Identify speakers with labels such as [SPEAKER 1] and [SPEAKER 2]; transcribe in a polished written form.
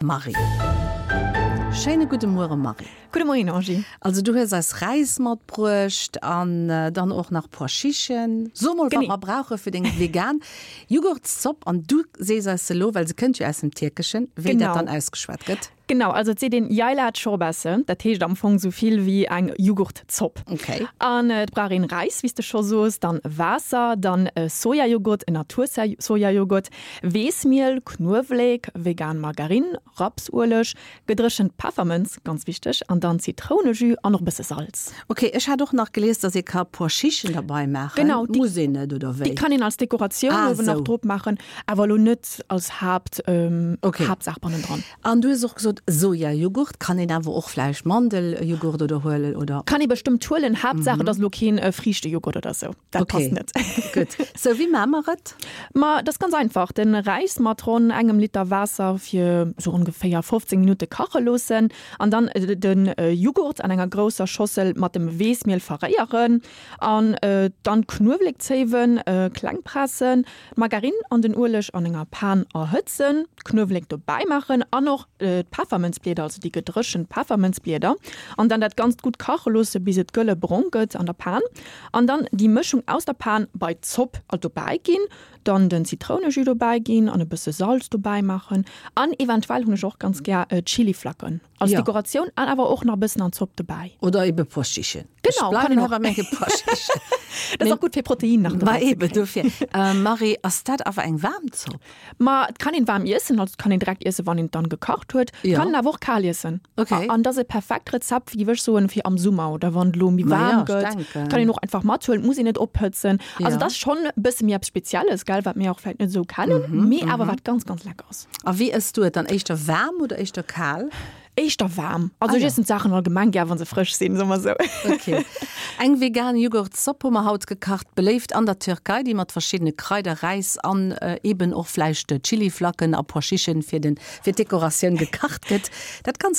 [SPEAKER 1] Marie. Schéine gudde Muere Marie.
[SPEAKER 2] Gudde Moien Angie.
[SPEAKER 1] Also du hues eis Räis matbruecht an dann och nach Pois Chichen. So mol wat mer brauche fir deng vegan Jughurtszopp an du sees eis elo, well se kënnt jo aus dem Tierkeschen, wéi dat dann ausgeschwat gëtt.
[SPEAKER 2] Genau, also et seet een Yayla Çorbası, dat heescht am Fong sou vill wéi eng Jughurtzopp.
[SPEAKER 1] Okay.
[SPEAKER 2] An et brauch een Räis, wéi s de scho soos, dann Waasser, dann Sojajoghurt, en Natursojajoghurt, Weessmiel, Knuewelek, vegan Margarine, Rapsueleg, gedréchent Peffermënz, ganz wichteg, an dann Zitrounejus an och e bësse Salz.
[SPEAKER 1] Ok, ech hat och nach gelies, dass ee ka Pois Chichen derbei maachen.
[SPEAKER 2] Genau,
[SPEAKER 1] déi, Muss een net, oder wéi?
[SPEAKER 2] Déi kann een als Dekoratioun ah, uewen nach drop maachen, awer elo net als Haapt, ähm,
[SPEAKER 1] okay.
[SPEAKER 2] Haaptsaach bannendran.
[SPEAKER 1] An du hues och gesot, Sojajoghurt, kann een awer och vläicht Mandeljoghurt oder huelen, oder?
[SPEAKER 2] Kann ee bestëmmt huelen, Haaptsaach et ass elo keen Friichtejoghurt oder sou. Dat
[SPEAKER 1] okay.
[SPEAKER 2] passt net.
[SPEAKER 1] Gutt. Sou, wéi maache mer et?
[SPEAKER 2] Ma dat ass ganz einfach, Den Räis mat ronn engem Liter Waasser fir sou ongeféier 15 Minutte kache loossen an dann de Jughurt an enger grousser Schossel mat dem Weessmiel verréieren an dann d'Knuewelekzéiwen kleng pressen, d'Margarine an den Ueleg an enger Pan erhëtzen, d'Knuewelek dobäi maachen an och d'Peffermënzblieder, also déi gedréchent Peffermënzblieder an dann dat Ganzt gutt kache loosse bis et gëlle brong gëtt an der Pan. An dann déi Mëschung aus der Pan bei d'Zopp dobäi ginn, dann den Zitrounejus dobäi ginn an e bësse Salz dobäi maachen an eventuell hunn ech och ganz gär Chiliflacken als Dekoratioun an awer och nach e bëssen an d'Zopp dobäi.
[SPEAKER 1] Oder ebe Pois-Chichen.
[SPEAKER 2] Genau, kann een och. Dat ass och gutt fir Protein nach
[SPEAKER 1] dobäi ze kréien. Ma eben dofir. Marie, ass dat awer eng waarm Zopp?
[SPEAKER 2] Ma et kann een waarm iessen, also et kann een direkt iessen, wann een et dann gekacht huet. Et kann een awer och kal iessen.
[SPEAKER 1] Okay.
[SPEAKER 2] An dat ass e perfekt Rezept, géif ech soen, fir am Summer oder wann et elo méi waarm gëtt. Et kann een och einfach mathuelen, et muss een net ophëtzen. Also et ass schonn e bësse méi eppes Spezielles, gell, wat mir och vläicht net esou kennen, mee awer wat ganz, ganz lecker ass.
[SPEAKER 1] A wéi ëss du et dann? Éischter waarm oder éischter kal?
[SPEAKER 2] Éischter waarm. Also ech iessen d'Saachen allgemeng gär, wa se frësch sinn, soe mer esou.
[SPEAKER 1] Ok. Eng vegan Jughurtzopp hu mer haut gekacht, beléift an der Türkei, déi mat verschiddene Kraider, Räis an eben och vläicht Chiliflacken a Pois Chichen fir den fir d'Dekoratioun gekacht gëtt. Dat Ganzt.